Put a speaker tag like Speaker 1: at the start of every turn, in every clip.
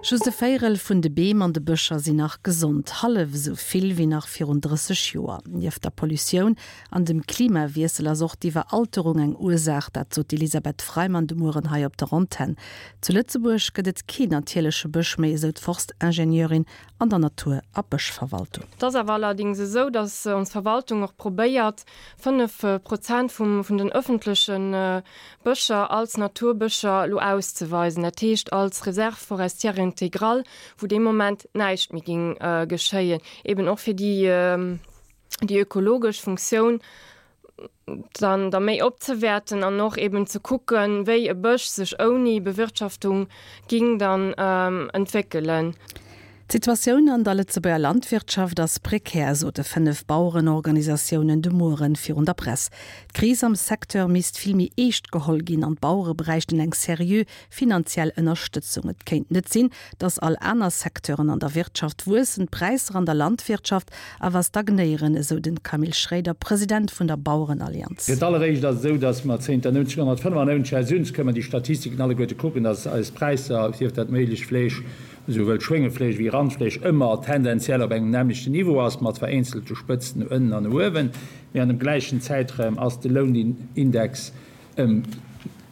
Speaker 1: Just e Véierel vun de Beem an de Bëscher sinn nach gesond, hallef esou vill wéi nach virun 30 Joer. Nieft der Pollutioun an dem Klimawiessel ass och d'Iwweralterung eng Ursaach, dat sot d'Elisabeth Freimann de Mueren hei op der Antenn. Zu Lëtzebuerg gëtt et keen natierleche Bësch méi, esou d'Forstingenieurin an der Natur a Bëschverwaltung.
Speaker 2: Et ass awer allerdings esou, datt ons Verwaltung och probéiert, 5 Prozent vum vun den öffentleche Bëscher als Naturbëscher elo auszeweisen, dat heescht als Réserve forestière intégrale, wou dee Moment näischt méi géing geschéien, eben och fir déi déi ökologesch Funktioun dann da méi opzewäerten an och eben ze kucken, wéi e Bësch sech ouni Bewirtschaftung ging dann entwéckelen.
Speaker 1: D'Situatioun an der Lëtzebuerger Landwirtschaft ass prekär, sote 5 Bauerenorganisatiounen de Mueren virun der Press. D'Kris am Secteur misst vill méi eescht geholl ginn an d'Bauere bräichten eng seriö finanziell Ënnerstëtzung. Et kéint net sinn, datt all aner Secteuren an der Wirtschaft wuessen, d'Präisser an der Landwirtschaft awer stagnéieren, esou den Camille Schréider, President vun der Bauerenallianz.
Speaker 3: Fir d'alleréischt ass et esou, datt mer zénter 1995, Här Süns, kënnen mer déi Statistiken alleguerte kucken, datt eis Präisser, sief dat Mélich, Fleesch, Esouwuel Schwéngefleesch wéi Randfleesch ëmmer tendenziell op engem nämmlechten Niveau ass, mat vereenzelte Spëtzen no ënnen an no uewen, mee an dem gläichen Zäitraum ass de Lounindex ëm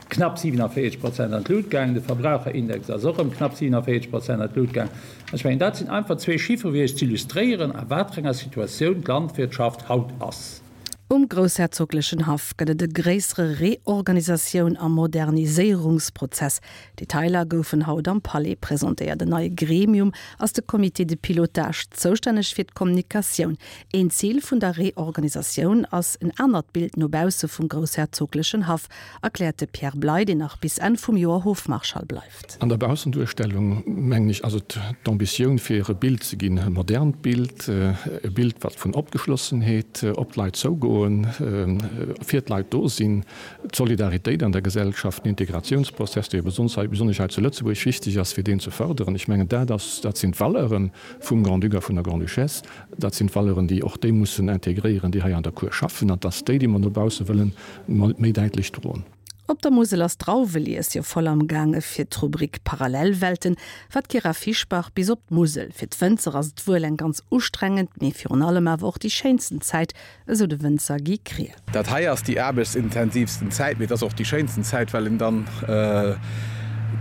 Speaker 3: knapp 47 Prozent an d'Lut gaangen, de Verbraucherindex ass och ëm knapp 47 Prozent an d'Lut gaangen. An ech mengen, dat sinn einfach zwee Chiffere fir Iech z'illustréieren, a wat fir enger Situatioun d'Landwirtschaft haut ass.
Speaker 1: Um groussherzoglechen Haff gëtt et e gréissere Reorganisatioun a Moderniséierungsprozess. Detailer goufen haut am Palais presentéiert. En neie Gremium ass de Comité de pilotage, zoustänneg fir d'Kommunikatioun. Een Zil vun der Reorganisatioun ass en anert Bild no bausse vum groussherzoglechen Haff, erkläert de Pierre Bley, deen nach bis Enn vum Joer Hofmarschall bleift.
Speaker 4: An der Baussenduerstellung, mengen ech, ass et d'Ambitioun fir e Bild ze ginn, e modernt Bild, e Bild wat vun Opgeschlossenheet, op d'Leit zougoen, fir d'Leit do sinn, d'Solidaritéit an der Gesellschaft, den Integratiounsprozess, dee jo besonnesch hei zu Lëtzebuerg wichteg ass, fir deen ze fërderen. Ech mengen, dat ass, dat sinn d'Valeure vum Grand-Duc a vun der Grande-Duchesse. Dat sinn d'Valeuren, déi och déi mussen integréieren, déi hei an der Cour schaffen, an dass déi, déi mer no bausse wëllen, méi däitlech droen.
Speaker 1: Op der Musel ass d'Drauwelies jo voll am gaange fir d'Rubrik Parallelwelten war d'Kyra Fischbach bis op d'Musel. Fir d'Wënzer ass et wuel eng ganz ustrengend, mee virun allem awer och déi schéinsten Zäit, esou de Wënzer Guy Krier.
Speaker 5: Dat hei ass déi aarbechtsintensivsten Zäit, mee et ass och déi schéinsten Zäit, well een dann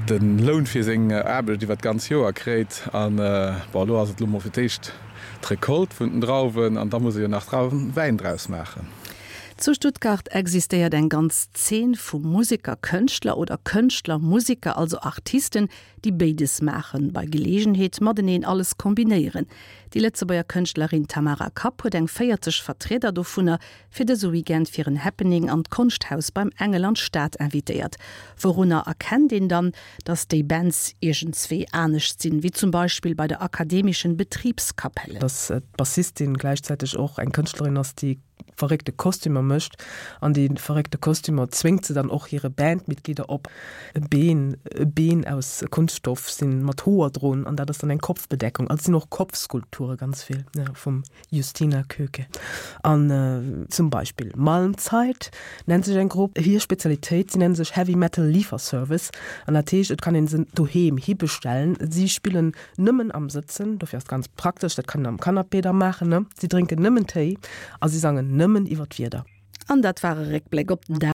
Speaker 5: de Loun fir seng Aarbecht iwwer d'ganz Joer kréit. An bon, elo ass et elo mol fir d'éischt d'Recolte vun den Drauwen an da muss ee jo nach Drauwenwäin draus maachen.
Speaker 1: Zu Stuttgart existéiert eng ganz Zeen vu Museker-Kënschtler oder Kënschtler-Museker, also Artisten, déi béides maachen, bei Geleegenheet mateneen alles kombinéieren. Déi Lëtzebuerger Kënschtlerin Tamara Kapp huet eng 40 Vertrieder dovunner fir dëse Weekend fir en Happening an d'Konschthaus beim Engel an d'Stad invitéiert. Wourunner erkennt een dann, datt déi Bands iergendswéi anescht sinn, wéi zum Beispill bei der Akademischen Betriebskapelle?
Speaker 6: Dass d'Bassistin gläichzäiteg och eng Kënschtlerin ass, déi verréckte Kostümer mécht. An déi verréckte Kostümer zwéngt se dann och hire Bandmitglieder op. E Been, e Been aus Kunststoff sinn mat Hoer drun an dat ass dann eng Kopfbedeckung. Also et sinn och Kopfskulpture ganz vill, ja, vum Justyna Köke. An zum Beispill Malmzeit nennt sech eng Grupp. Hir Spezialitéit, si nenne sech Heavy Metal Lieferservice an dat heescht, et kann een se doheem hibestellen. Si spillen Nëmmen am Sëtzen, dofir ass et ganz praktesch, dat kann een am Canapé da maachen, ne? Si drénken nëmmen Téi a si sangen nëmmen iwwer d'Wieder.
Speaker 1: An dat war e Réckbléck op den Dag.